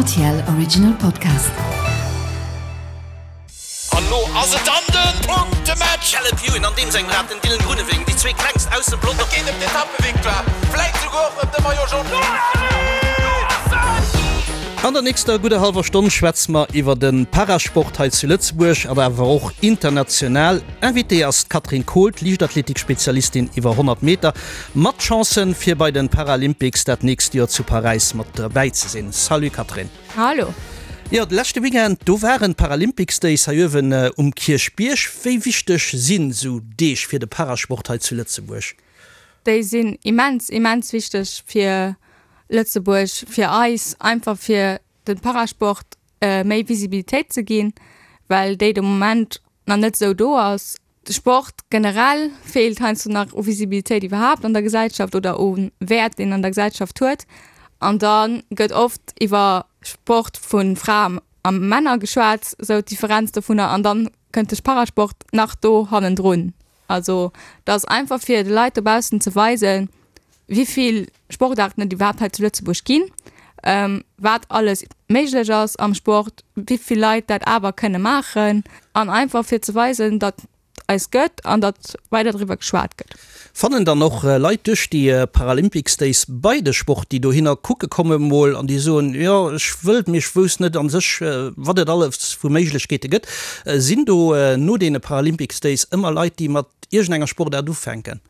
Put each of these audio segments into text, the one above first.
Rtl Original Podcast. An lo ass et dann den Punktematch! Caleb Ewan an deem sengem Rad den Dylan Groenewegen, déi zwee klengst aus dem Pelotong. Et geet ëm d'Etappevictoire, vläit souguer och ëm de Maillot Jaune. An der nächster gudder hallwer Stonn schwätze mer iwwer de Parasport hei zu Lëtzebuerg an awer och international. Invitée ass d'Katrin Kohl, d'Liichtathletik-Spezialistin iwwer 100 Meter, mat Chancen fir bei den Paralympics dat nächst Joer zu Paräis mat derbäi ze sinn. Salut Catherine. Hallo. Jo, de leschte Weekend, do waren d'Paralympics Days hei uewen um Kierchbierg. Wéi wichteg sinn esou Deeg fir de Parasport hei zu Lëtzebuerg? Déi sinn immens, immens wichteg fir Lëtzebuerg, fir eis, einfach fir de Parasport méi Visibilitéit ze ginn, well déi de Moment nach net esou do ass. De Sport generell feelt heiansdo nach u Visibilitéit iwwerhaapt an der Gesellschaft oder u Wäert, deen en an der Gesellschaft huet. An da gëtt oft iwwer Sport vu Fraen a Männer geschwat, esou d'Differenz dovunner. An dann kënnt de Parasport nach do hannendrun. Also dat ass einfach fir de Leit dobaussen ze weisen, wéi vill Sportaarten et iwwerhaapt hei zu Lëtzebuerg ginn, wat alles méiglech ass am Sport, wéi vill Leit dat awer kënne maachen an einfach fir ze weisen, datt et eis gëtt an datt weider driwwer geschwat gëtt. Fannen dann och Leit duerch déi Paralympics Days bei de Sport, déi dohinner kucke komme mol an déi soen, jo ech wëllt, mee ech wousst net a sech wat et alles vu Méiglechkeete gëtt. Sinn do no deene Paralympics Days ëmmer Leit, déi mat iergendenger Sportaart ufänken?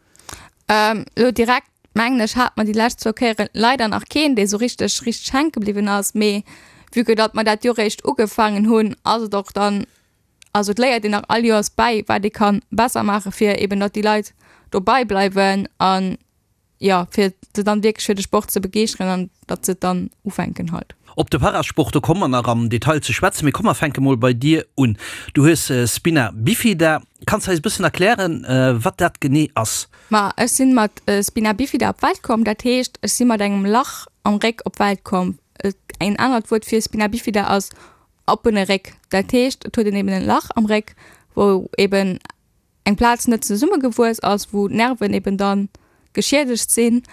Elo direkt mengen ech hat mer déi lescht zwou Kéieren leider nach keen, dee sou richteg richteg hänke bliwwen ass. Mee vue que datt mer dat Joer réischt ugefaangen hunn, ass et och dann, also et léiert een nach all Joers bäi, wat ee ka besser maache fir eben datt déi Leit dobei bleiwen an jo fir se dann wierklech fir de Sport ze begeeschteren an datt se et dann ufänken halt. Op de Parasport, do komme mer nach am Detail ze schwätzen, mee komm mer fänke mol bei dir un. Du hues Spina Bifida. Kanns de eis e bëssen erklären, wat dat genee ass? Ma ech sinn mat Spina Bifida op d'Welt komm, dat heescht ech si mat engem Lach am Réck op d'Welt komm. En anert Wuert fir Spina Bifida ass oppene Réck. Dat heescht et huet een eben en Lach am Réck, wou eben eng Plaz net zesummegewuess ass, wou d'Nerven eben dann geschiedegt sinn.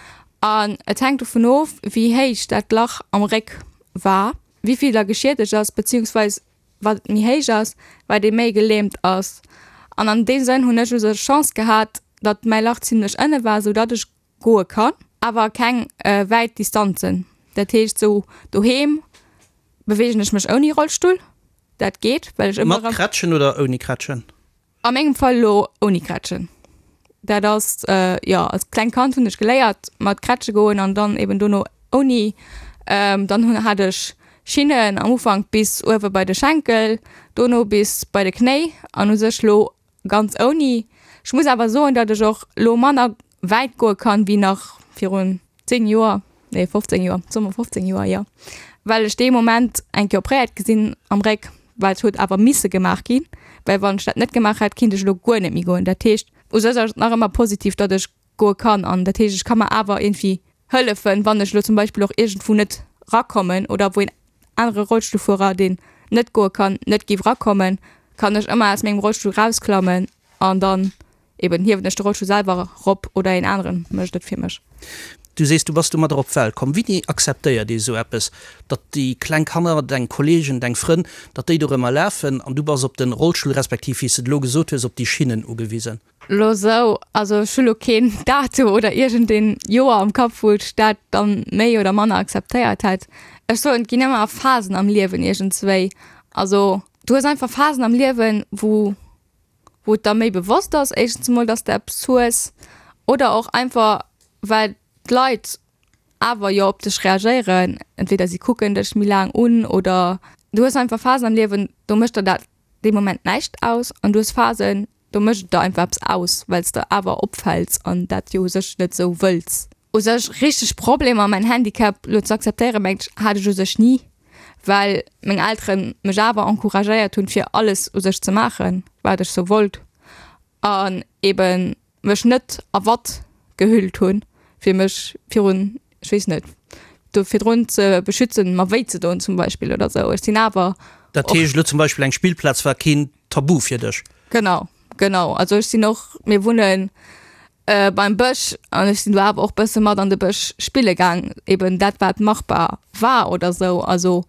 An et hänkt dovun of, wéi héich dat Lach am Réck war, wéi vill da geschiedegt ass, beziehungsweis wat et méi héich ass, wat ee méi gelähmt ass. An an deem Sënn hunn ech u sech Chance gehat, datt mäi Lach zimlech ënne war, sou datt ech goe kann, awer keng wäit Distanzen. Dat heescht sou doheem beweegen ech mech ouni Rollstull, dat geet, well ech ëmmer. Mat Krätschen oder ouni Krätschen? A mengem Fall elo ouni Krätschen. Dat ass, jo, als klengt Kand hunn ech geléiert mat Krätsche goen an dann eben dono ouni. Dann hunn, hat ech Schinnen am Ufank bis uewe bei de Schenkel, dono bis bei de Knéi an u sech lo ganz ouni. Ech muss awer soen, datt ech och lo manner wäit goe kann wéi nach virun 10 Joer, nee 15 Joer, soe mer 15 Joer, jo, well ech dee Moment eng Kéier opréiert gi sinn am Réck, well et huet awer misse gemaach ginn, well wann ech dat net gemaach hätt, kinnt ech elo guer net méi goen. Dat heescht, u sech ass et nach ëmmer positiv, datt ech goe kann an dat heescht, ech ka mer awer iergendwéi hëllefen, wann ech elo zum Beispill och iergendwou net rakommen oder wou een anere Rollstullfuerer, deen net goe kann, net géif rakommen, kann ech ëmmer aus mengem Rollstull rausklammen an dann Eben hiewen ech de Rollstull selwer rop oder een aneren mécht et fir mech. Du sees, du bass domadder op d'Welt komm. Wéini akzeptéiert ee sou eppes, datt déi kleng Kanner, deng Kolleegen, deng Frënn, datt déi dorëmmer lafen an du bass op de Rollstull, respektiv, wéi s de et elo gesot hues, op déi Schinnen ugewisen? Lo sou, also ech hu lo keen Datum oder iergendeen Joer am Kapp, wou ech dat dann méi oder manner akzeptéiert hätt. Ech soen, et ginn ëmmer Phasen am Liewen iergendswéi. Also du hues einfach Phasen am Liewen, wou wou et der méi bewosst ass, éischtens emol, dass de eppes hues oder och einfach well d'Leit awer jo op dech reagéieren, entweder si kucken dech méi laang un oder du hues einfach Phasen am Liewen, do mécht der dat dee Moment näischt aus an du hues Phasen, do mécht et der einfach eppes aus, well s de awer opfäls an dat jo u sech net esou wëlls. U sech richteg Problemer mäin Handicap lo ze akzeptéieren, mengt ech, hat ech u sech ni, well meng Elteren mech awer encouragéiert hunn fir alles u sech ze maachen, wat ech sou wollt an eben mech net a Watt gehüllt hunn, fir mech virun, ech weess net, do virdrun ze beschützen, mer wéi ze doen zum Beispill oder sou. Ech sinn awer Dat heescht elo zum Beispill eng Spillplaz war keen Tabu fir dech? Genau, genau. Also ech sinn och, mir wunnen. Beim Bësch an ech sinn do awer och bësse mat an de Bësch spille gaang, eben dat wat machbar war oder sou. Also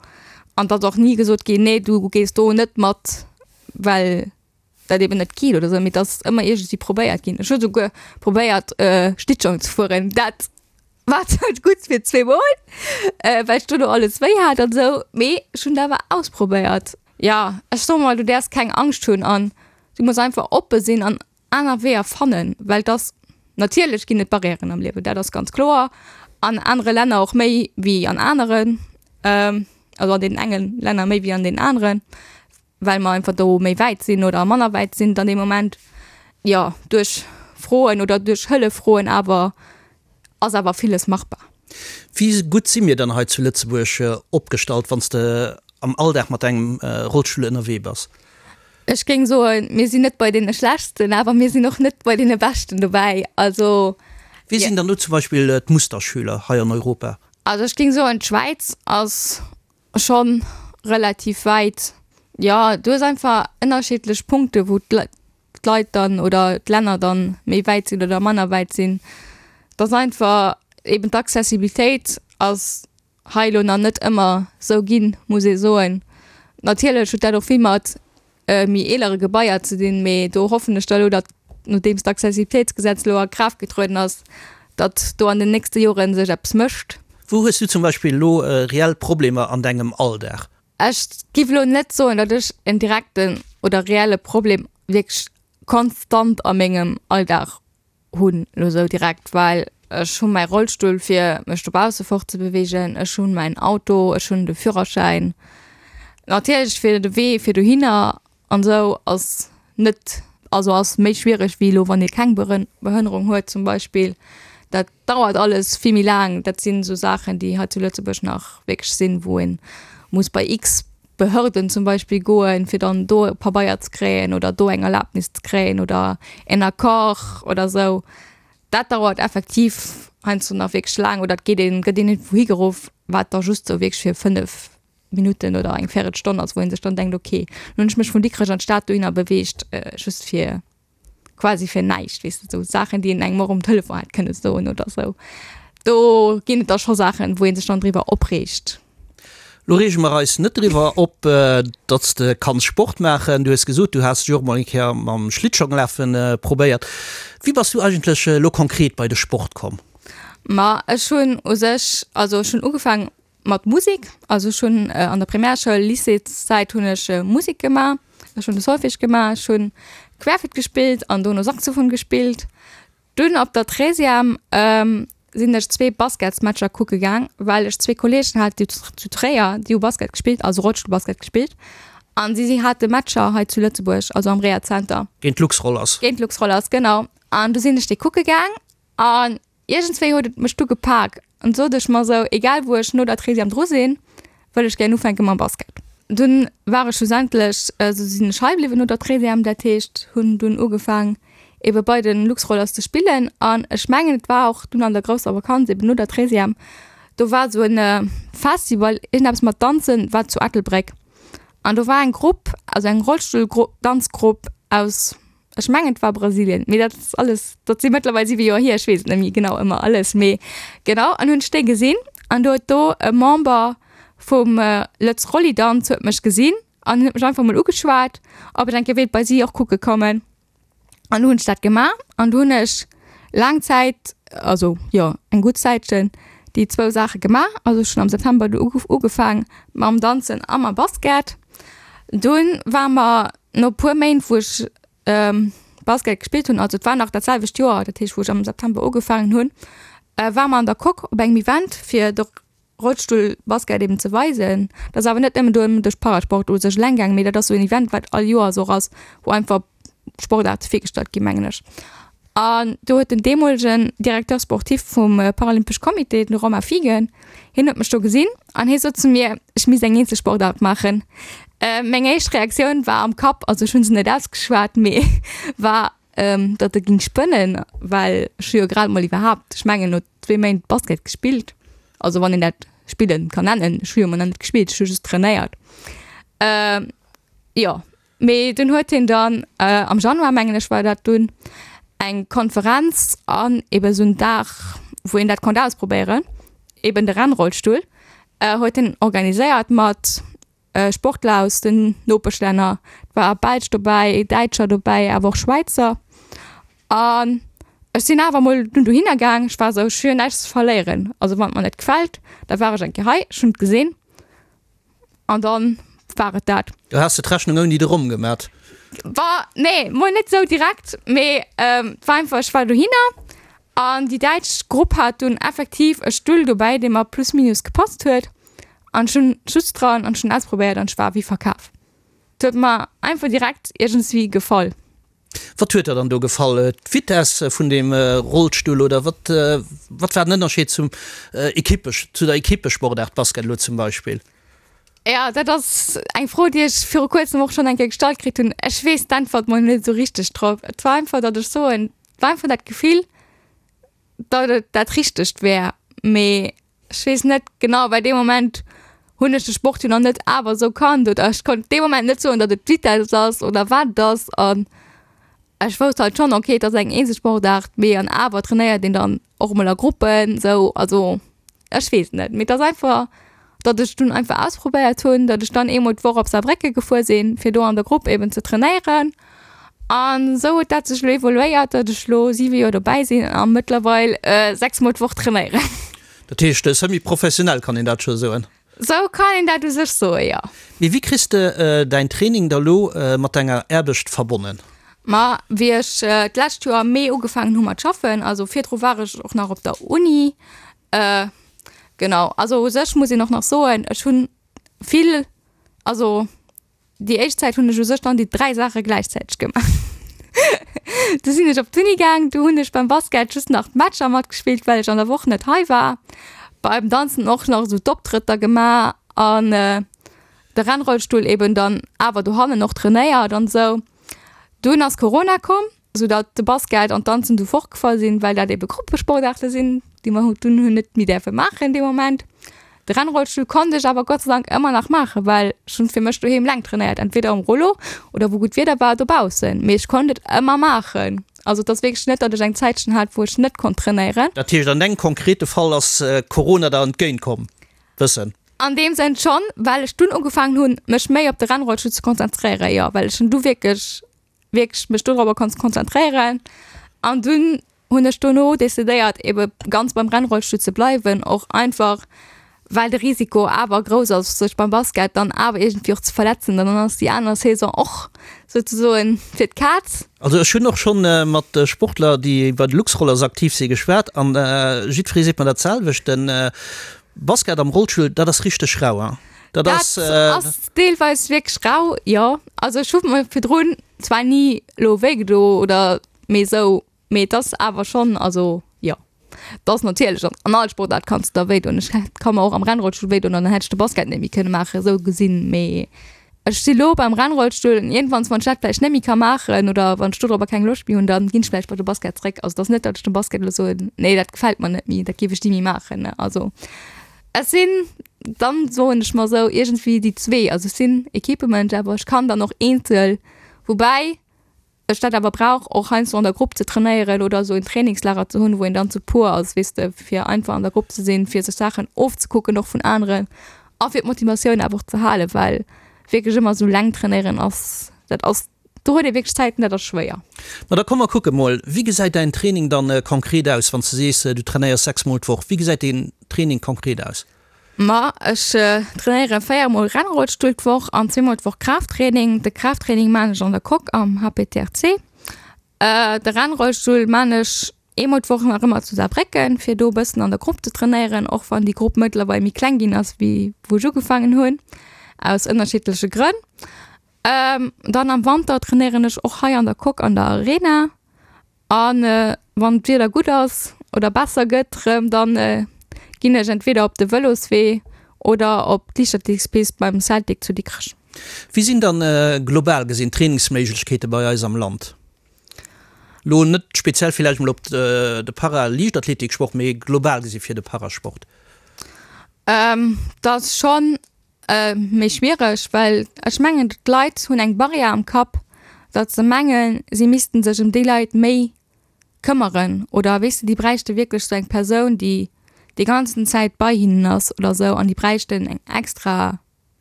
an et ass och ni gesot ginn, nee du gees do net mat, well dat eben net geet oder sou, mee et ass ëmmer iergendwéi probéiert ginn. Ech hu souguer probéiert Schlittschong ze fueren, dat war zwar gutt fir zweemol, well ech dono alles wéi hat an sou, mee ech hunn et awer ausprobéiert. Jo, ech soe mol, du däerfs keng Angscht hunn an du muss einfach oppe sinn an aner Weeër fannen, well dass, natierlech ginn et Barrièren am Liewen, dat ass ganz kloer, an anere Länner och méi wéi an aneren, also an deenen enge Länner méi wéi an deenen aneren, well mer einfach do méi wäit sinn oder manner wäit sinn dann dee Moment. Jo, duerch Froen oder duerch Hëllef froen awer ass awer villes machbar. Wéi gutt si mir dann hei zu Lëtzebuerg opgestallt, wann s de am Alldag mat engem Rollstull ënnerwee bass? Ech géing soen, mir sinn net bei deene Schlechtsten, awer mir sinn och net bei deene Beschten dobäi. Also. Wie sinn dann do zum Beispill d'Musterschüler hei an Europa? Also ech géing soen, d'Schwäiz ass scho relativ wäit. Jo, du hues einfach ënnerschiddlech Punkte wou d'Leit dann oder d'Länner dann méi wäit sinn oder manner wäit sinn. Et ass einfach eben d'Accessibilitéit ass hei elo nach net ëmmer sou ginn, muss ee soen. Natierlech huet dat och vill mat méi eelere Gebaier ze dinn, mee do hoffen ech da elo, datt, nodeems d'Accessibilitéitsgesetz elo a Kraaft getrueden ass, datt do an den nächste Jore sech eppes mécht. Wou hues du zum Beispill elo reell Problemer an dengem Alldag? Ech giff elo net soen, datt ech en direkten oder reelle Problem wierklech konstant a mengem Alldag hunn elo sou direkt, well ech hu mäi Rollstull fir mech dobausse fortzebeweegen, ech hunn mäin Auto, ech hunn de Führerschäin. Natierlech fir de Wee fir dohinner an esou ass net, also ass méi schwiereg wéi elo wann ee keng Behënnerung huet zum Beispill. Dat dauert alles vill méi laang. Dat sinn esou Saachen déi hei zu Lëtzebuerg nach wierklech sinn, wou ee muss bei x Behörden zum Beispill goen, fir dann do e Pabeier ze kréien oder do eng Erlaabnis ze kréien oder en Accord oder esou. Dat dauert effektiv heiansdo nach wierklech laang oder et geet een, gëtt een iergendwou higeruff, wat da just sou wierklech fir 5 Minutten oder eng Véirelstonn ass, wou ee sech dann denkt, okay, lo hunn ech mech vun Dikrech an d'Stad dohinner beweegt, just fir quasi fir näischt, weess de, sou Saachen, déi een engem och um Telefon hätt kënne soen oder sou. Do ginn et da scho Saachen, wou ee sech dann driwwer opreegt. Lo reege mer eis net driwwer op, datt s de kanns Sport maachen. Du hues gesot, du has dech och mol eng Kéier mam Schlittschonglafe probéiert. Wéi bass du eigentlech elo konkret bei de Sport komm? Ma ech hunn u sech, also ech hunn ugefaangen Mat Musek, also ech hunn an der Primärschoul, Lycéeszäit hunn ech Musek gemaach. Ech hunn de Solfège gemaach, ech hunn Querflütt gespillt an dono Saxophon gespillt. Dunn op der Treizième sinn ech zwee Basketsmatcher kucke gaang, well ech zwee Kolleegen hat déi zu Tréier, déi hu Basket gespillt, also Rollstullbasket gespillt an si si hate Matcher hei zu Lëtzebuerg, also am Rehazenter. Géint d'Luxrollers. Géint d'Luxrollers, genau. An du sinn ech déi kucke gaang an Iergendswéi huet et mech du gepak an sot ech mer sou, egal wou ech no der Treizième dru sinn, wëll ech gären ufänke mam Basket. Dunn war ech schlussendlech, also sinn ech hei bliwwen no der Treizième, dat heescht hunn dunn ugefaang ebe bei de Luxrollers ze spillen an ech mengen et war och dunn an der grousser Vakanz eben no der Treizième, do war sou en Festival, iergendeppes mat Danzen, war zu Ettelbréck an do war eng Grupp, also eng Rollstulldanzgrupp aus Ech mengen et war Brasilien, mee dat ass alles, dat si mëttlerweil 7 Joer hier, ech weess et net méi genau ëmmer alles, mee genau an hunn ech déi gesinn an do huet do e Member vum Lëtz Rollidanz huet mech gesinn an huet mech einfach mol ugeschwat, ob ech eng Kéier wéilt bei si och kucke kommen an du hunn ech dat gemaach an du hunn ech laang Zäit, also jo eng gutt Zäitchen déi zwou Saache gemaach, also ech hunn am September du ugefaang mam Danzen a mam Basket. Dunn war mer No puer Méint wou ech Basket gespillt hunn, also et war nach dat selwecht Joer, dat heescht wou ech am September ugefaangen hunn, ware mer an der Coque op engem Event fir de Rollstullbasket eben ze weisen. Dat ass awer net nëmmen do ëm de Parasport u sech eleng gaangen, mee dat ass sou en Event wat all Joers och ass, wou einfach Sportaarte virgestallt ginn, mengen ech. An do huet den deemolegen Directeur sportif vum Paralympesch Comité, den Romain Fiegen, hien huet mech do gesinn an hie sot zu mir, ech misst eng eenzel Sportaart maachen. Meng éischt Reaktioun war am Kapp, also ech hu se net ausgeschwat, mee war, datt e géing spënnen, well ech hu jo grad mol iwwerhaapt, ech mengen no zwee Méint Basket gespillt, also wann een dat spillen kann nennen, ech hu jo mol nach net gespillt, ech hu just trainéiert. Jo. Mee dunn huet hien dann, am Januar mengen ech war dat dunn, Eng Konferenz an eben esou en Dag, wou een dat konnt ausprobéieren, eben de Rennrollstull, huet en organiséiert mat Sportler aus den Nopeschlänner. Et war Belsch dobäi, Däitscher dobäi, awer och Schwäizer. An ech sinn awer mol dunn dohinner gaang. Ech war esou, ech hu jo näischt ze verléieren. Also wann et mer net gefält, da war ech eng Kéier hei, ech hunn et gesinn. An dann war et dat. Du has de d'Rechnung ouni de Rom gemat? War, nee, mol net sou direkt, mee et war einfach, ech war dohinner an déi däitsch Grupp hat dunn effektiv e Stull dobäi, dee mer plus minus gepasst huet an ech hunn just dran an ech hunn ausprobéiert an ech war wéi verkaf. Et huet mer einfach direkt iergendswéi gefall. Wat huet der dann do gefall? D'Vitesse vun deem Rollstull oder wat, wat war den Ënnerscheed zum Equippe, zu der Equippesportaart Basket elo zum Beispill? Jo, dat ass eng Fro, déi ech viru kuerzem och schonn eng Kéier gestallt kritt hunn. Ech weess d'Äntwert mol net esou richteg drop. Et war einfach, datt ech soen, et war einfach dat Gefill, datt et dat Richtegt wär. Mee ech weess net genau, well dee Moment hunn ech de Sport jo nach net awer esou kannt oder ech konnt dee Moment net soen, datt et d'Vitess ass oder wat et ass. An ech wousst halt schonn, okay, et ass eng Eenzelsportaart, mee an awer trainéiert een dann och emol a Gruppen esou. Also ech weess et net, mee et ass einfach, datt ech dunn einfach ausprobéiert hunn, datt ech dann eemol d'Woch op Saarbrécken gefuer sinn, fir do an der Grupp eben ze trainéieren. An esou huet dat sech elo evoluéiert, datt ech elo 7 Joer dobäi sinn a mëttlerweil 6 mol d'Woch trainéieren. Dat heescht semi-professionell, kann een dat scho soen? Sou kann een dat u sech soen, jo. Mee wéi kriss de däin Training da lo mat denger Aarbecht verbonnen? Ma wéi ech d'lescht Joer am Mee ugefaangen hu mat schaffen, also virdru war ech och nach op der Uni, genau, also u sech muss een och nach soen, ech hunn vill, also Déi éischt Zäit hunn ech u sech dann déi 3 Saache gläichzäiteg gemaach. Du sinn ech op d'Uni gaang, du hunn ech beim Basket just nach d'Matcher matgespillt, well ech an der Woch net hei war. Beim Danzen och nach esou d'Optrëtter gemaach an de Rennrollstull eben dann awer dohannen och trainéiert an esou. Dunn ass Corona komm. Sou datt de Basket an d'Danzen du fortgefall sinn, well dat ebe Gruppesportaarte sinn, déi mer dunn hunn net méi däerfe maachen dee Moment. De Rennrollstull konnt ech awer Gott sei Dank ëmmer nach maachen, well ech hunn fir mech doheem laang trainéiert, entweder um Rollo oder wou gutt Wieder war dobaussen, mee ech konnt et ëmmer maachen. Also et ass wierklech net, datt ech eng Zäitchen hat, wou ech net konnt trainéieren. Dat heescht, an dengem konkrete Fall ass Corona der entgéint komm, bëssen? An deem Sënn schonn, well ech dunn ugefaangen hunn, mech méi op de Rennrollstull ze konzentréieren, jo, well ech hunn du wierklech wierklech mech dodropper konnt konzentréieren. An dunn hunn ech dono decidéiert ebe ganz beim Rennrollstull ze bleiwen, och einfach well de Risiko awer grouss ass sech beim Basket dann awer iergendwéi och ze verletzen, dann ass déi aner Saison och souzesoen fir d'Kaz. Also ech hunn och schonn mat Sportler déi bei de Luxrollers aktiv si geschwat an jiddweree seet mer dat selwecht, den Basket am Rollstull, dat ass richteg rau, hein? Dat ass. Dat ass deelweis wierklech rau, jo. Also ech hu mer virdrun zwar ni lo wéi gedo oder mee esou, mee et ass awer schonn, also jo, et ass natierlech an an all Sportaart kanns de der wéi doen. Ech hätt ka mer och am Rennrollstull wéi doen an dann hätt ech de Basket net méi kënne maachen, esou gesinn. Mee ech si lo beim Rennrollstull an iergendwanns, wann ech dat vläicht net méi ka maachen oder wann ech dodropper keng Loscht méi hunn, dann ginn ech vläicht bei de Basket zréck. Also et ass net, datt ech dem Basket elo soen, nee dat gefält mer net méi, dat géif ech ni méi maachen, ne. Also ech sinn dann, soen ech mer esou, iergendwéi déi zwee. Also ech sinn Equipemensch, awer ech kann dann och eenzel, woubäi ech dat awer brauch, och heiansdo an der Grupp ze trainéieren oder esou en Trainingslager ze hunn, wou een dann zu puer ass, weess de, fir einfach an der Grupp ze sinn, fir sech Saachen ofzekucken och vun aneren a fir d'Motivatioun awer och ze halen, well wierklech ëmmer esou eleng trainéieren ass, dat ass, do huet ee wierklech Zäiten, dat ass schwéier. Ma da komm mer kucke mol, wéi gesäit däin Training dann konkret aus, wann s de sees, du trainéiers 6 mol d'Woch, wéi gesäit deen Training konkret aus? Ma ech trainéiere 4 mol Rennrollstull d'Woch an zweemol d'Woch Kraafttraining. De Kraafttraining maan ech an der Coque am HPTRC. De Rennrollstull maan ech eemol d'Woch nach ëmmer zu Saarbrécken, fir do e bëssen an der Grupp ze trainéieren, och wann déi Grupp mëttlerweil méi kleng ginn ass wéi wou ech ugefaangen hunn, aus ënnerschiddleche Grënn. Dann am Wanter trainéieren ech och hei an der Coque an der Arena. A wann d'Wieder gutt ass oder besser gëtt rëm, da ginn ech entweder op de Vëloswee oder op d'Liichtathletikspist beim Celtic zu Dikrech. Wéi sinn dann global gesinn d'Trainingsméiglechkeete bei eis am Land? Lo net speziell villäicht mol op de Para-Liichtathletiksport, mee global gesi fir de Parasport. Dat ass schonn Méi schwiereg, well ech mengen d'Leit hunn eng Barrière am Kapp, datt se mengen, si missten sech ëm déi Leit méi. këmmeren oder weess de, déi bräichte wierklech sou eng Persoun, déi déi ganzen Zäit bei hinnen ass oder sou an déi bräichten eng extra,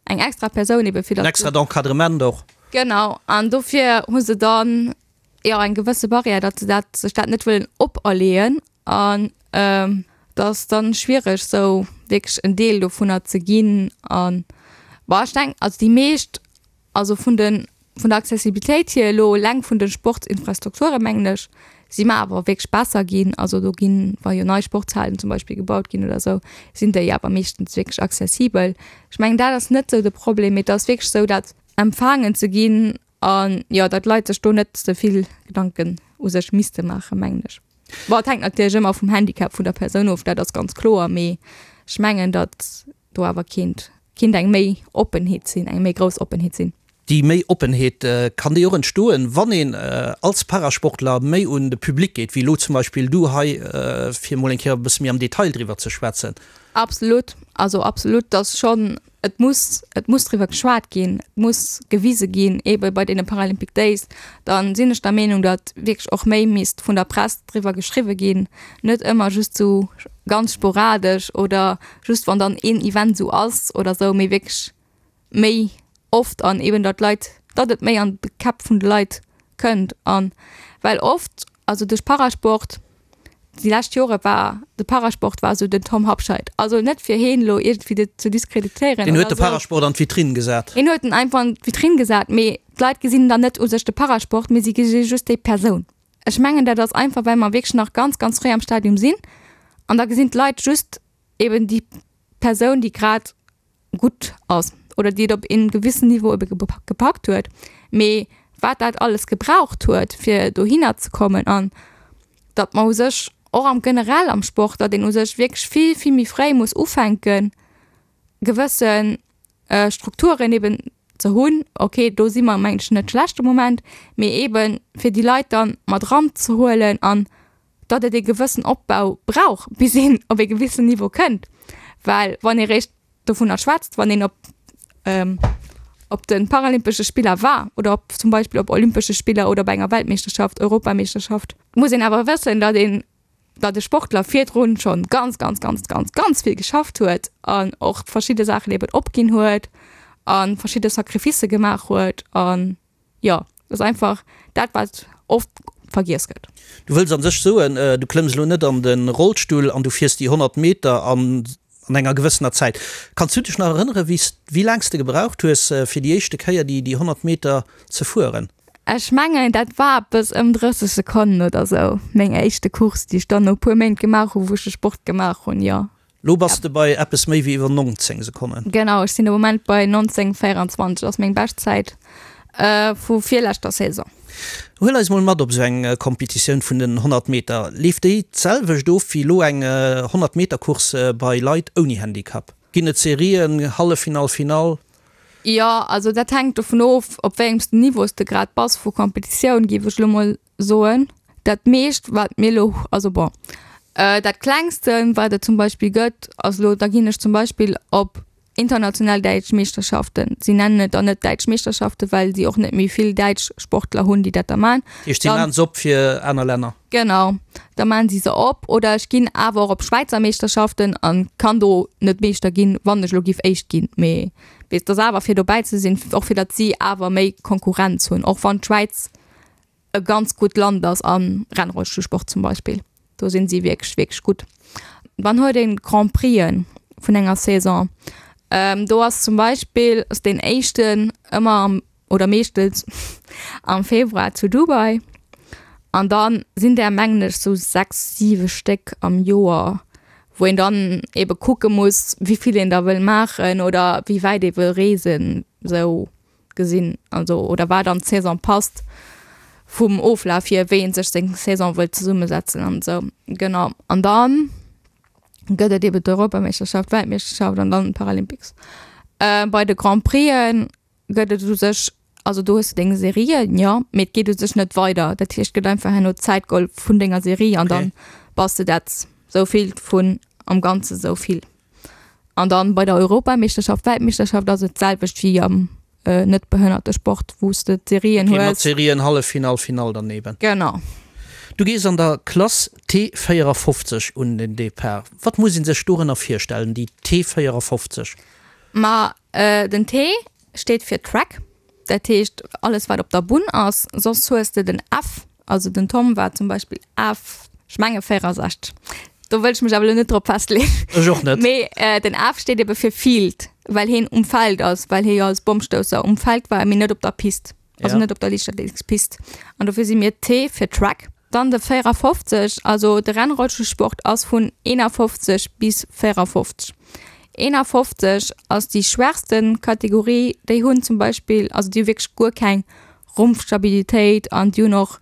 eng extra Persoun ebe fir En datt. extrat Encadrement och. Genau, an dofir hu se dann jo eng gewësse Barrière, datt se dat, sech dat net wëllen operleeën an et ass dann schwiereg sou wierklech en Deel dovunner ze ginn an bon ech denken, also déi meescht Also vun de vun der Accessibilitéit hier elo eleng vun de Sportsinfrastrukture mengen ech, si mer awer wierklech besser ginn. Also do ginn, wa jo nei Sportshalen zum Beispill gebaut ginn oder esou, sinn déi awer meeschtens wierklech accessibel. Ech mengen dat ass net esou de Problem, mee et ass wierklech esou dat empfaangen ze ginn an jo, datt d'Leit sech do net ze vill Gedanken u sech misste maachen, mengen ech. Bon, et hänkt natierlech ëmmer vum Handicap vun der Persoun of, dat ass ganz kloer, mee ech mengen, datt do awer kéint kéint eng méi Oppenheet sinn, eng méi grouss Oppenheet sinn. Déi méi Oppenheet, kann déi och entstoen, wann een als Parasportler méi un de Public geet, wéi elo zum Beispill du hei, fir emol eng Kéier e bësse méi am Detail driwwer ze schwätzen? Absolut, also absolut, dass schonn, et muss, et muss driwwer geschwat ginn, et muss gewise ginn, eebe bei deene Paralympic Days, da sinn ech der Meenung, datt wierklech och méi misst vun der Press driwwer geschriwwe ginn, net ëmmer just sou ganz sporadesch oder just wann dann een Event sou ass oder sou, mee wierklech méi oft an eben datt d'Leit, datt et méi an de Käpp vun de Leit kënnt an well oft, also duerch Parasport, déi lescht Jore war de Parasport war sou den Tom Habscheid, also net fir heen elo iergendwéi ze diskreditéieren Deen huet de Parasport an d'Vitrinn gesat. Hien huet en einfach an d'Vitrinn gesat, mee d'Leit gesinn dann net u sech de Parasport, mee si gesi just déi Persoun. Ech mengen dat ass einfach well mer wierklech nach ganz ganz fréi am Stadium sinn an da gesinn d'Leit just eben déi Persoun déi grad gutt ass oder déi et op ee gewissen Niveau ebe gepackt huet, mee wat dat alles gebraucht huet fir dohinner ze kommen an datt mer u sech och am generell am Sport, datt een u sech wierklech vill vill méi fréi muss ufänken gewësse Strukturen eben ze hunn. Ok, do si mer mengen ech net schlecht de Moment, mee eben fir déi Leit dann mat eranzehuelen an datt et ee gewëssen Opbau brauch, bis een op ee gewissen Niveau kënnt. Well wann ee réischt dovunner schwätzt, wann een op op de Paralympesche Spiller war oder op zum Beispill op Olympesche Spiller oder bei enger Weltmeeschterschaft, Europameeschterschaft, muss een awer wëssen, datt een, datt e Sportler virdrun schonn ganz, ganz, ganz, ganz, ganz vill geschafft huet an och verschidde Saachen eben opginn huet a verschidde Sacrificë gemaach huet an Jo, et ass einfach dat, wat oft vergiess gëtt. Du wëlls an sech soen, du klëmms elo net an de Rollstull an du fiers déi 100 Meter an an enger gewëssener Zäit. Kanns du dech nach erënnere wéi s, wéi laang s de gebraucht hues, fir déi éischte Kéier déi déi 100 Meter ze fueren? Ech mengen, dat war eppes ëm 30 Sekonnen oder sou, meng éischte Course, déi ech dann no e puer Méint gemaach hunn, wou ech de Sport gemaach hunn, jo. Lo bass de bei eppes méi wéi iwwer 19 Sekonnen. Genau, ech sinn de Moment bei 19,24, ass meng Beschtzäit vu virleschter Saison. Huel eis mol mat op esou eng Competitioun vun den 100 Meter. Leeft déi d'selwecht of wéi elo eng 100 Meter Course bei Leit ouni Handicap? Ginn et Serien, Halleffinall, Finall? Jo, also dat hänkt dovun of, op wéi engem Niveau s de grad bass vu Competitioun, géif ech elo mol soen. Dat meescht wat mir elo, also bon, dat klengsten wat et zum Beispill gëtt ass elo, da ginn ech zum Beispill op international däitsch Meeschterschaften. Si nennen et dann net däitsch Meeschterschaften, well si och net méi vill däitsch Sportler hunn, déi dat da man. Dat heescht, si maachen se op fir aner Länner? Genau, da maachen si se op. Oder ech ginn awer och op Schwäizer Meeschterschaften an kann do net Meeschter ginn, wann ech elo giff Éischt ginn. Mee et ass awer fir dobäi ze sinn, och fir datt si awer méi Konkurrenz hunn, och wann d'Schwäiz e ganz gutt Land ass am Rennrollstullsport zum Beispill. Do sinn si wierklech, wierklech gutt. Dann huet een d'Grand Prixen vun enger Saison. Do ass zum Beispill ass deen éischten ëmmer am oder meeschtens am Februar zu Dubai. An dann sinn där mengen ech sou 6, 7 Stéck am Joer, wou een dann ebe kucke muss, wéi vill een der wëll maachen oder wéi wäit ee wëll reesen sou. gesinn, also oder wat an d'Saison passt vum Oflaf hier, wéi een sech seng Saison wëllt zesummesetzen an esou. Genau. An dann gëtt et eben d'Europameeschterschaft, d'Weltmeeschterschaft an dann d'Paralympics. Äh, bei de Grand Prixen gëtt et u sech, also do hues de deng Serien, jo, mee et geet u sech net weider. Dat heescht, et gëtt einfach herno d'Zäit geholl vun denger Serie an dann bass de dat souvill vun am Ganze souvill. An dann bei der Europameeschterschaft, Weltmeeschterschaft ass et d'selwecht wéi am net behënnerte Sport, wou s de d'Serien hues. Okay, mat Serien, Halleffinall, Finall dann eben. Genau. Du gees an der Klass T 54 un den Depart. Wat muss ee sech dorënner virstellen, déi T 54? Ma den T steet fir Track, dat heescht alles wat op der Bunn ass. Soss hues de den F, also den Tom war zum Beispill F, ech menge 64, do wëll ech mech awer elo net drop festleeën. Ech och net. Mee den F steet ebe fir Field, well hien um Feld ass, well hie jo als Bommstousser um Feld war, mee net op der Pist. Also net op der Liichtathletikspist. An dofir si mir T fir Track. Dann de 54, also de Rennrollstullsport ass vun 51 bis 54. 51 ass déi schwächste Kategorie, déi hunn zum Beispill, also déi hu wierklech guer keng Rumpfstabilitéit an déi hunn och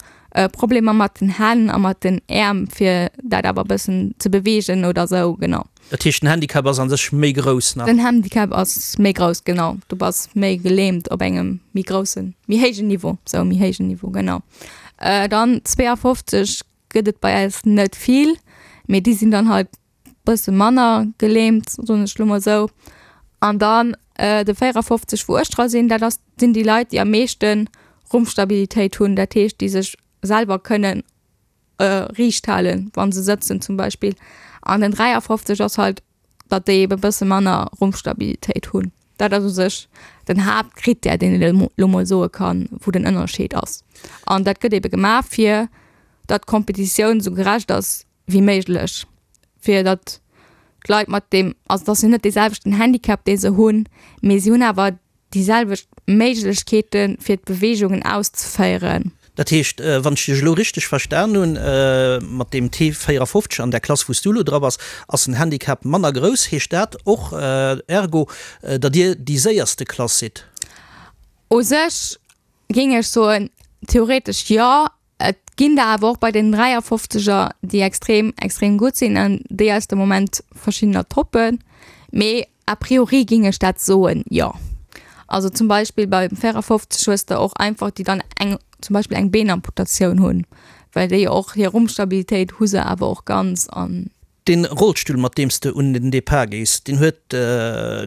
Problemer mat den Hänn a mat den Äerm, fir dat awer e bëssen ze beweegen oder sou, genau. Dat heescht, den Handicap ass an sech méi grouss nach? Den Handicap ass méi grouss, genau. Du bass méi gelähmt op engem méi groussen, méi héijen Niveau, sou méi héijen Niveau, genau. Dann 52 gëtt et bei eis net vill, mee déi sinn dann halt bësse manner gelähmt, soen ech lo mol sou. An dann de 54, wou ech dra sinn, dat ass, sinn déi Leit, déi am meeschte Rumpfstabilitéit hunn, dat heescht, déi sech selwer kënnen riicht halen, wa se sëtzen zum Beispill. An den 53 ass halt, datt déi ebe bësse manner Rumpfstabilitéit hunn. Dat ass u sech den Haaptkrittär, deen een elo mol soe kann, wou den Ënnerscheed ass. An dat gëtt ebe gemaach, fir datt d'Kompetitioun esou gerecht ass wéi méiglech, fir datt d'Leit mat deem, also et ass jo net dee selwechten Handicap, dee se hunn, mee si hunn awer déi selwecht Méiglechkeeten, fir d'Beweegungen auszeféieren. Dat heescht, wann ech dech elo richteg verstan hunn, mat deem T 54 an där Klass, wou s du elo dra bass, ass den Handicap manner grouss. Heescht dat och ergo, datt dir déi séierste Klass sidd? U sech géing ech soen, theoretesch jo. Et ginn der awer och bei den 53er, déi extrem, extrem gutt sinn an déi eis de Moment verschiddener toppen. Mee a priori géing ech dat soen, jo. Also zum Beispill beim 54 hues de och einfach, déi dann eng, zum Beispill eng Beenamputatioun hunn, well déi och hir Rumpfstabilitéit hu se awer och ganz an. Deen Rollstull mat deem s de un den Depart gees, deen huet,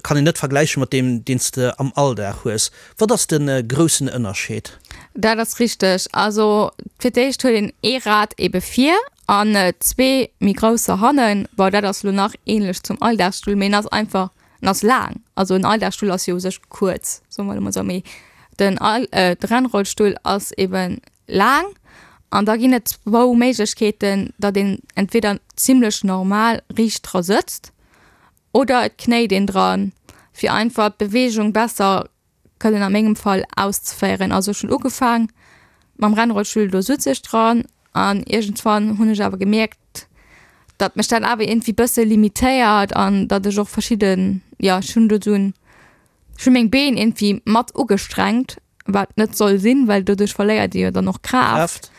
kann een net vergläichen mat deem deen s de am Alldag hues. Wat ass de groussen Ënnerscheed? Dat ass richteg. Also fir d'éischt huet een ee Rad ebe vir an zwee méi grousser hannen. Bon, dat ass elo nach ähnlech zum Alldagsstull, mee en ass einfach, en ass laang. Also en Alldagsstull ass jo u sech kuerz, soe mer elo mol esou, mee den All, de Rennrollstull ass eben laang an da ginn et zwou Méiglechkeeten, datt een entweder zimlech normal riicht dra sëtzt oder et knéit een dran, fir einfach d'Beweegung besser kënnen a mengem Fall auszeféieren. Also ech hunn ugefaang mam Rennrollstull, do sutz ech dran an iergendwann hunn ech awer gemierkt, datt mech dat awer iergendwéi bësse limitéiert an datt ech och verschidden, jo ech hunn do esou en Ech hu meng Been iergendwéi mat ugestrengt, wat net soll sinn, well doduerch verléiert ee jo dann och Kraaft.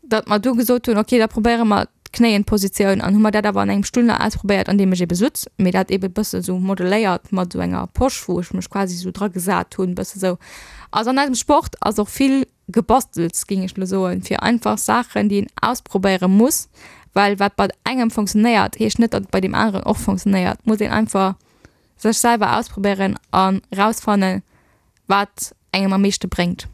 Datt mer du gesot hunn, okay, da probéiere mer d'Knéienpositioun an hu mer dat awer an engem Stull nach ausprobéiert, an deem ech ebe sutz, mee dat ebe bësse sou modeléiert mat esou enger Posch, wou ech mech quasi sou dra gesat hunn, bësse sou. Also an eisem Sport ass och vill Gebastels, géing ech elo soen, fir einfach Saachen, déi een ausprobéiere muss, well wat bei engem funktionéiert, heescht net, datt et bei deem aneren och funktionéiert. Muss een einfach Sech selwer ausprobéieren an rausfannen wat engem am meeschte bréngt.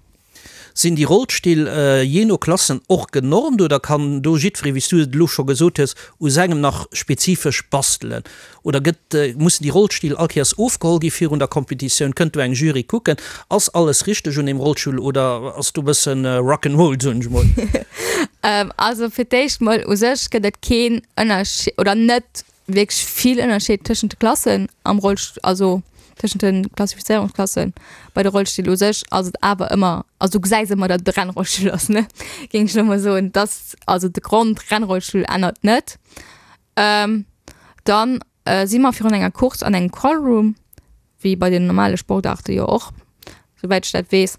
Sinn déi Rollstill jee no Klassen och genormt oder kann do jiddweree, wéi s du et elo scho gesot hues, u sengem nach spezifesch bastelen? Oder gëtt, mussen déi Rollstill all Kéiers ofgeholl gi virun der Competitioun? Kënnt do eng Jury kucken, ass alles richteg un deem Rollstull oder ass do e bëssen Rock 'n' Roll, soen ech mol? Also fir d'éischt mol, u sech gëtt et keen Ënnerscheed oder net wierklech vill Ënnerscheed tëschent de Klassen am Rollst-, also tëschent de Klassifizéierungsklassen. Bei de Rollstill u sech ass et awer ëmmer, also du gesäis ëmmer, datt et e Rennrollstull ass, ne, géing ech elo mol soen. Dass, also de Grond-Rennrollstull ännert net. Dann si mer virun enger Course an engem Callroom, wéi bei den normale Sportaarte jo och, souwäit ech dat weess.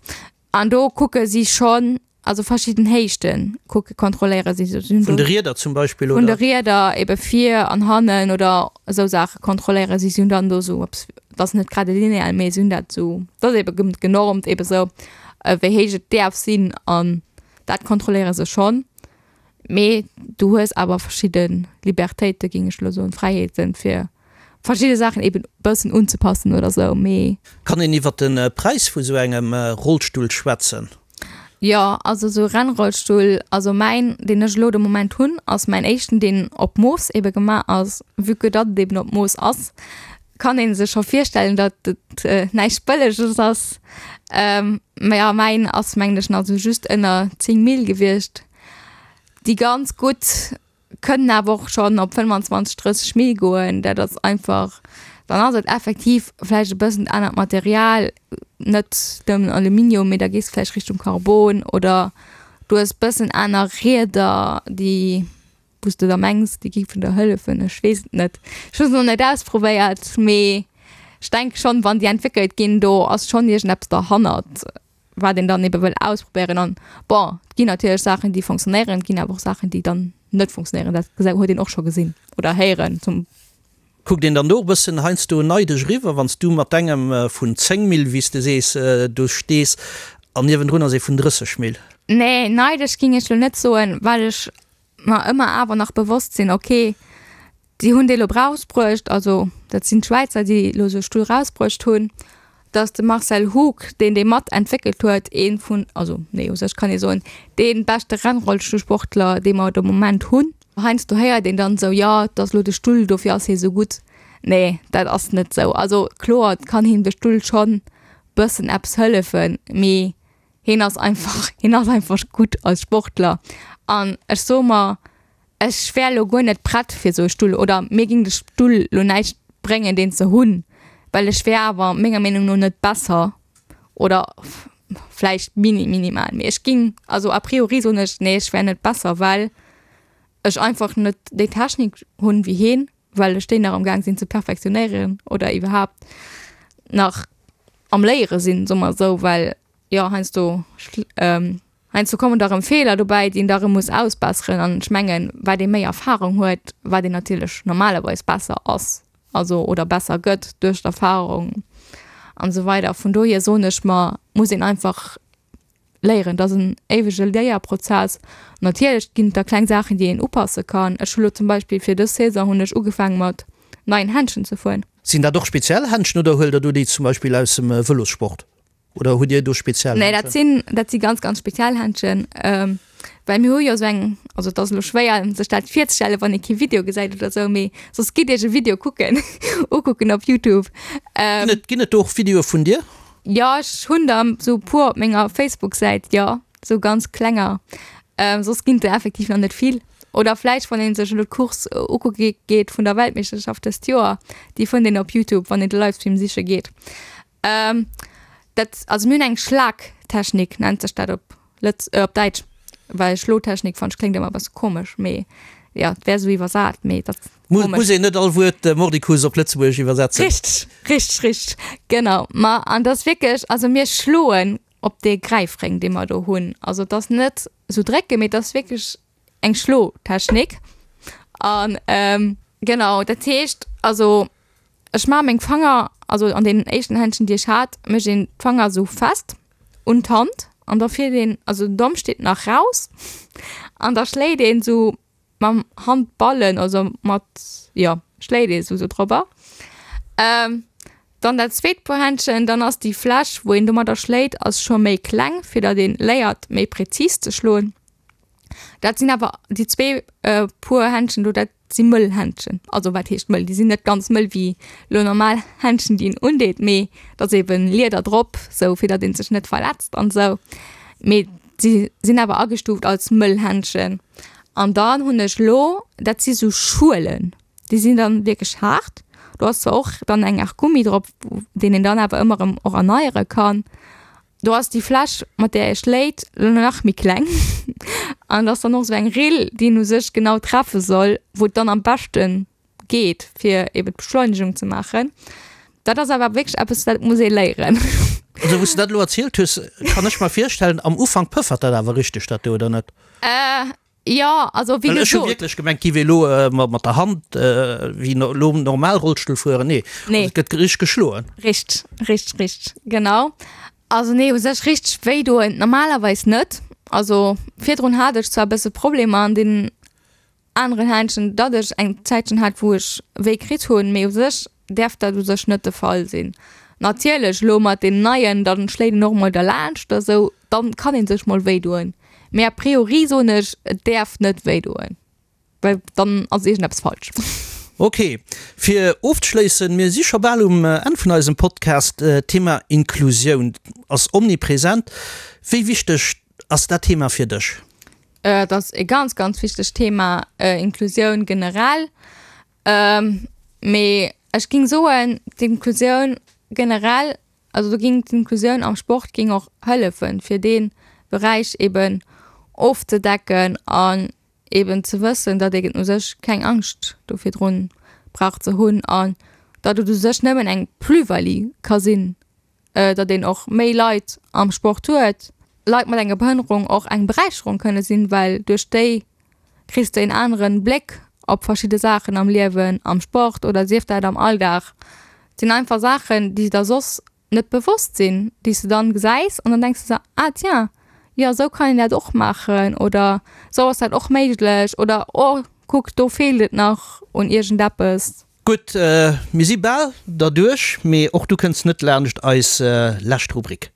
An do kucke si schonn, also verschidden Héichte kucke, kontrolléiere si. Vun de Rieder zum Beispill, oder? Vun de Rieder ebe vir an hannen oder esou Saache kontrolléiere si. Si hunn dann do esou eppes, dat ass net grad e Lineal, mee si hunn dat esou, dat ass ebe genormt ebe esou, wéi héich et däerf sinn an dat kontrolléiere se schonn. Mee du hues awer verschidde Libertéite géing ech elo soen, Fräiheeten, fir verschidde Saachen eben bëssen unzepassen oder sou. Mee. Kann een iwwer de Präis vu sou engem Rollstull schwätzen? Jo, also esou Rennrollstull, also mäin, deen ech elo de Moment hunn, ass mäin éischten, deen op Mooss ebe gemaach ass. Vue que datt et eben op Mooss ass, kann ee sech scho virstellen, datt et näischt Bëlleges ass. Mä jo, mäin ass mengen ech nach esou just ënner 10 Mille gewiescht. Déi ganz gutt kënnen awer och schonn op 25, 30 Mille goen. Dat ass einfach, dann ass et effektiv vläicht e bëssen anert Material, net nëmmen Aluminium, mee da gees de vläicht Richtung Carbon oder du hues bëssen aner Rieder, déi, wou s de da mengs, déi géifen der hëllefen. Ech weess et net, ech hu se nach net ausprobéiert, mee ech denke schonn, wann déi entwéckelt ginn, do ass schonn iergendeppes derhannert. wat een dann ebe wëll ausprobéieren an bon, et ginn natierlech Saachen déi fonctionnéieren, et ginn awer och Saachen déi dann net fonctionnéieren, dat gesa huet een och scho gesinn oder héieren zum. Kuckt een dann do och e bëssen heiansdo neidesch eriwwer, wann s du mat dengem vun 10 Mille, wéi s de sees, do stees an niewendrun ass ee vun 30 Mille? Nee, neidesch géing ech lo net soen, well ech mer ëmmer awer nach bewosst sinn, okay, Déi hunn dee lo rausbruecht, also dat sinn d'Schwäizer, déi elo esou e Stull rausbruecht hunn, datt de Marcel Hug, deen dee mat entwéckelt huet, ee vun, also nee, u sech kann ee soen, dee beschte Rennrollstullsportler, dee mer de Moment hunn. Heiansdo héiert een dann esou, jo, et ass elo de Stull, dofir ass hie esou gutt. Nee, dat ass net esou. Also kloer kann him de Stull schonn bëssen eppes hëllefen, mee hien ass einfach, hien ass einfach gutt als Sportler. An ech soe mer, Ech wär lo guer net prett fir sou e Stull oder mir ging de Stull lo näischt bréngen deen ze hunn, well ech wär awer menger Meenung no net besser oder vläicht mini minimal, mee ech ging also a priori soen ech nee ech wär net besser, well ech einfach net déi Technik hunn wéi heen, well ech déi nach am gaang sinn ze perfektionéieren oder iwwerhaapt nach am léiere sinn, soe mer esou, well jo heiansdo Heiansdo kommen da rëm Feeler dobäi, déi een da rëm muss ausbesseren. An ech mengen, wat ee méi Erfahrung huet, wat een natierlech normalerweis besser ass, also oder besser gëtt duerch d'Erfahrung an esou weider. Vun dohier soen ech mer, muss een einfach léieren. Dat ass en éiwege Léierprozess. Natierlech ginn et da kleng Saachen, déi een upasse kann. Ech hu lo zum Beispill fir dës Saison hunn ech ugefaange mat neien Händschen ze fueren. Sinn dat och speziell Händschen oder huelt der do déi zum Beispill aus dem Vëlossport? Oder hutt Dir do speziell Nee, dat sinn, dat si ganz, ganz speziell Händschen. Ähm, well mir hu jo esou eng, also et ass elo schwéier sech dat virzestellen, wann ee kee Video gesäit oder esou, mee soss gitt Iech e Video kucken, ukucken op Youtube. Ähm, Ginn et, ginn et do och Videoe vun dir? Jo, ech hunn der esou e puer op menger Facebook-Säit, jo, esou ganz klenger. Ähm, soss ginn et der effektiv nach net vill. Oder vläicht, wann ee sech elo d'Course ukucke geet vun der Weltmeeschterschaft dëst Joer, déi fënnt een op Youtube, wann een de Livestream siche geet. Ähm, dat, also mir hunn eng Schlagtechnik, nennt sech dat op Lëtz, äh, op Däitsch, well Schlotechnik fannt ech kléngt ëmmer e bësse komesch, mee jo, et wär esou iwwersat, mee dat ass Muss, komesch. muss een net all Wuert mordicus op Lëtzebuergesch iwwersetzen. Richteg, richteg, richteg, genau. Ma an dat ass wierklech, also mir schloen op dee Gräifréng, dee mer do hunn. Also et ass net esou drécken, mee et ass wierklech eng Schlotechnik. An genau, dat heescht also ech maache meng Fanger, also an deenen éischten Händschen déi ech hat, mécht een d'Fanger esou fest un d'Hand an da fiert een, also den Domm steet nach raus an da schléit een esou mam Handballen, also mat, jo schléit ee sou drobber. Dann dat zweet Puer Händschen, dann ass déi Fläch wou een domadder schléit ass scho méi kleng, fir datt een léiert méi präzis ze schloen. Dat sinn awer déi zwee Puer Händschen do, dat si mëll Händschen. Also wat heescht mëll? Déi sinn net ganz mëll wéi lo normal Händschen, déi een undeet, mee et ass eben Lieder drop, sou fir datt ee sech net verletzt an esou. Mee si sinn awer agestuuft als mëll Händschen. An dann hunn ech lo, dat si sou Schuelen, déi sinn dann wierklech haart. Do ass zwar och dann eng Aart Gummi drop, deen een dann awer ëmmer erëm och erneiere kann. Do ass déi Fläsch, mat där ee schléit, lo nach méi kleng an et ass dann och esou eng Rill, déi een u sech genau treffe soll, wou et dann am beschte geet, fir eben d'Beschleunegung ze maachen. Dat ass awer wierklech eppes, dat muss ee léieren. Also wou s de dat elo erzielt hues, kann ech mer virstellen, am Ufank pëffert dat awer richteg dat do, oder net? Jo, also wéi Well ech hu gesot. wierklech gemengt, giff ee lo mat der Hand wéi lo normal Rollstull fueren. Nee, Nee. also et gëtt richteg geschloen. Richteg, richteg, richteg, genau. Also nee, u sech richteg wéi doen normalerweis net. Also virdrun hat ech zwar e bësse Problemer an deenen aneren Händschen, datt ech eng Zäitchen hat, wou ech wéi kritt hunn, mee u sech däerf dat u sech net de Fall sinn. Natierlech elo mat deenen neien, dann schléit een och mol derlaanscht oder sou, dann kann een sech mol wéi doen. Mee a priori soen ech, et däerf net wéi doen, well dann ass iergendeppes falsch. Ok, fir ofzeschléissen, mir si scho bal um Enn vun eisem Podcast, d'Thema Inklusioun ass omnipresent. Wéi wichteg ass dat Thema fir dech? Et ass e ganz, ganz wichtegt Thema, Inklusioun generell. Mee ech géing soen, d'Inklusioun generell, also do géing d'Inklusioun am Sport géing och hëllefen, fir dee Beräich eben ofzedecken an eben ze wëssen, datt een u sech keng Angscht do virdrun brauch ze hunn an datt et u sech nëmmen eng Plus-value ka sinn, datt een och méi Leit am Sport huet, Leit mat enger Behënnerung och eng Beräicherung kënne sinn, well duerch déi kriss de en aneren Bléck op verschidde Saachen am Liewen, am Sport oder sief dat am Alldag. Et sinn einfach Saachen, déi der soss net bewosst sinn, déi s de dann gesäis an dann denks de der, ah tiens, jo esou kann een dat och maachen oder esou ass dat och méiglech oder oh kuck do feelt et nach un iergendeppes. Gutt, mir si bal derduerch, mee och du kënns net laanscht eis lescht Rubrik.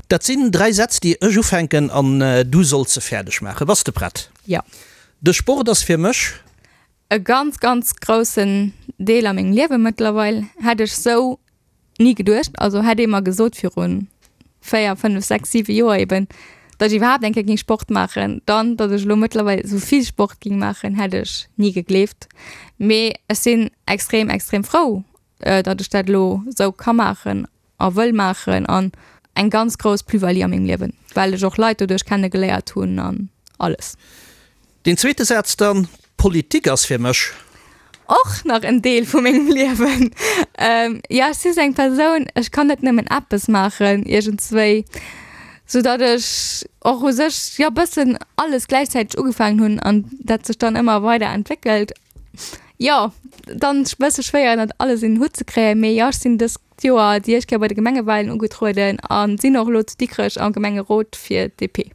Dat sinn 3 Sätz, déi ech ufänken an du solls se fäerdeg maachen. Bass de prett? Jo. De Sport ass fir mech. E ganz, ganz groussen Deel a mengem Liewe mëttlerweil. Hätt ech sou Ni geduecht. Also hätt ee mer gesot virun 4, 5, 6, 7 Joer eben, datt ech iwwerhaapt eng Kéier géing Sport maachen, dann datt ech elo mëttlerweil esou vill Sport géing maachen, hätt ech ni gegleeft. Mee ech sinn extrem, extrem frou, datt ech dat elo esou ka maachen a wëll maachen an eng ganz grouss Plus-value a mengem Liewen, well ech och Leit doduerch kenne geléiert hunn an alles. Deen zweete Saz dann, Politik ass fir mech. Och nach en Deel vu mengem Liewen. Jo, ech si sou eng Persoun, ech kann net nëmmen eppes maachen iergendswéi, sou datt ech och u sech, jo, bëssen alles gläichzäiteg ugefaangen hunn an dat sech dann ëmmer weider entwéckelt. Jo, dann bësse schwéier dat alles un den Hutt ze kréien, mee jo, ech sinn dëst Joer déi éischt Kéier bei de Gemengewalen ugetrueden a sinn och elo zu Dikrech am Gemengerot fir d'DP.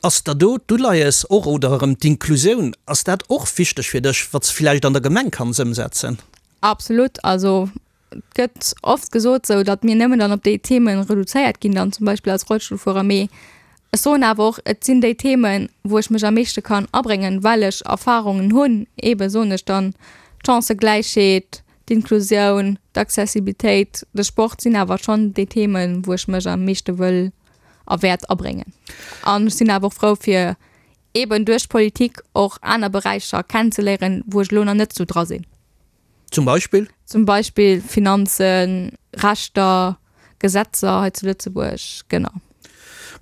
Ass der do d'Uleies och, oder erëm d'Inklusioun, ass dat och wichteg fir dech, wat s de villäicht an der Gemeng kanns ëmsetzen? Absolut. Also et gëtt oft gesot sou, datt mir nëmmen dann op déi Themen reduzéiert ginn, dann zum Beispill als Rollstullfuerer, mee ech soen awer och, et sinn déi Themen, wou ech mech am meeschte kann abréngen, well ech Erfahrungen hunn, eebe soen ech dann d'Chancëgläichheet, d'Inklusioun, d'Accessibilitéit, de Sport sinn awer schonn déi Themen, wou ech mech am meeschte wëll a wäert abréngen. An ech sinn awer och frou fir eeben duerch d'Politik och aner Beräicher kennenzeléieren, wou ech elo nach net esou dra sinn. Zum Beispill? Zum Beispill Finanzen, Rechter, Gesetzer hei zu Lëtzebuerg, genau.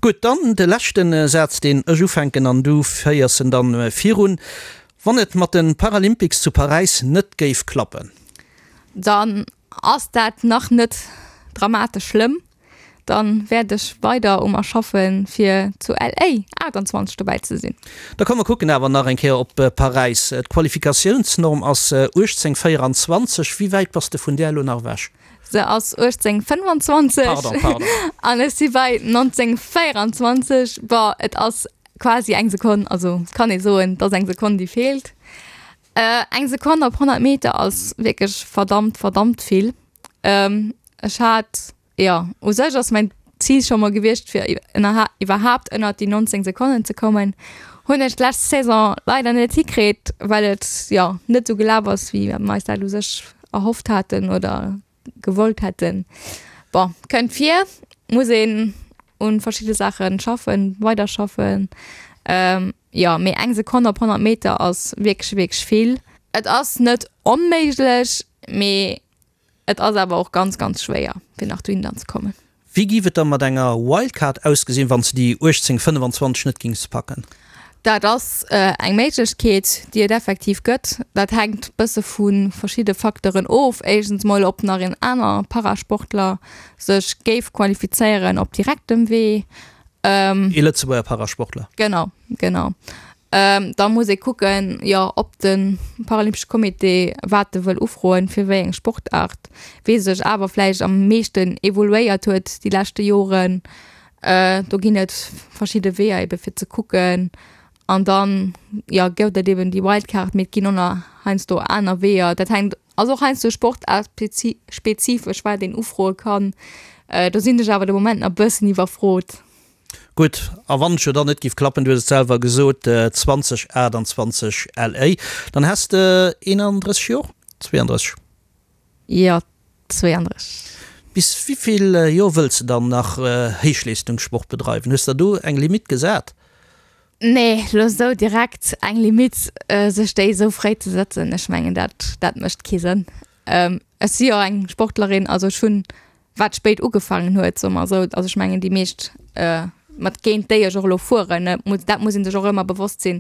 Gutt, dann de leschte Saz, deen ech ufänken an du féiers en dann virun. Wann et mat de Paralympics zu Paräis net géif klappen? Dann ass dat nach net dramatesch schlëmm. Dann wäert ech weider u mer schaffen fir zu LA 28 dobäi ze sinn. Da komm mer kucken awer nach eng Kéier op Paräis. D'Qualifikatiounsnorm ass 18,24. Wéi wäit bass de vun där elo nach ewech? Se ass 18,25. Pardon, pardon. An ech si bei 19,24. Bon, et ass quasi eng Sekonn, also kann ee soen, et ass eng Sekonn déi feelt. Eng Sekonn op 100 Meter ass wierklech verdammt, verdammt vill. Ech hat, jo, u sech ass mäin Zil scho mol gewiescht, fir iwwerhaapt ënnert déi 19 Sekonnen ze kommen. Hunn ech d'lescht Saison leider net hikritt, well et, jo, net esou gelaf ass, wéi mer eis dat u sech erhofft haten oder gewollt hätten. Bon, kënnt vir, muss een un verschidde Saache schaffen, weiderschaffen. Jo, mee eng Sekonn op 100 Meter ass wierklech, wierklech vill. Et ass net onméiglech, mee et ass awer och ganz, ganz schwéier, fir nach dohinner ze kommen. Wéi giff et da mat enger Wildcard ausgesinn, wann s de déi 18,25 net gings packen? Dat ass eng Méiglechkeet, déi et effektiv gëtt. Dat hänkt bësse vu verschidde Facteuren of. Éischtens mol, ob nach een aner Parasportler sech géif qualifizéieren op direktem Wee. Ee Lëtzebuerger Parasportler. Genau, genau. Da muss ee kucken, jo, ob de Paralympesche Comité wat e wëll ufroen, fir wéi eng Sportaart, wee sech awer vläicht am meeschten evoluéiert huet déi leschte Joren. Do ginn et verschidde Weeër ebe fir ze kucken. An dann, jo, gëtt et eben déi Wildcard, mee et ginn och nach heiansdo aner Weeër. Dat hänkt. Ass och heiansdo sportaartspezifesch, wat een ufroe kann. Do sinn ech awer de Moment nach e bëssen iwwerfrot. Gutt, a wann et jo dann net giff klappen, du hues et selwer gesot, 2028 LA, dann häss de 31 Jor? 32? Jo, 32. Bis wivill Jor wëlls de dann nach Héichleestungssport bedreiwen? Hues der do eng Limitt gesat? Nee, lo sou direkt eng Limitt sech déi sou fréi ze sëtzen, ech mengen dat dat mécht kee Sënn. Ech si jo eng Sportlerin, also ech hunn wat spéit ugefaangen huet, soe mer esou, also ech mengen déi meescht mat géint déi ech och elo fueren, dat muss ee sech och ëmmer bewosst sinn,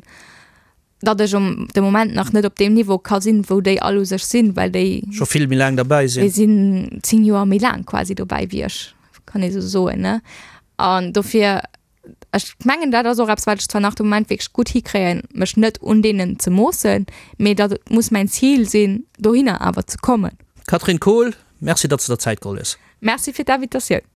datt ech um de Moment nach net op deem Niveau ka sinn, wou déi all u sech sinn, well déi scho vill méi laang derbäi sinn. Déi sinn 10 Joer méi laang quasi dobäi wéi ech, kann ee sou soen, ne? An dofir, ech mengen dat ass och eppes, wat ech zwar nach de Moment wierklech gutt hikréien, mech net un deenen ze moossen, mee datt et muss mäin Zil sinn, dohinner awer ze kommen. Catherine Kohl, Merci, datt s de der Zäit geholl hues. Merci fir d'Invitatioun.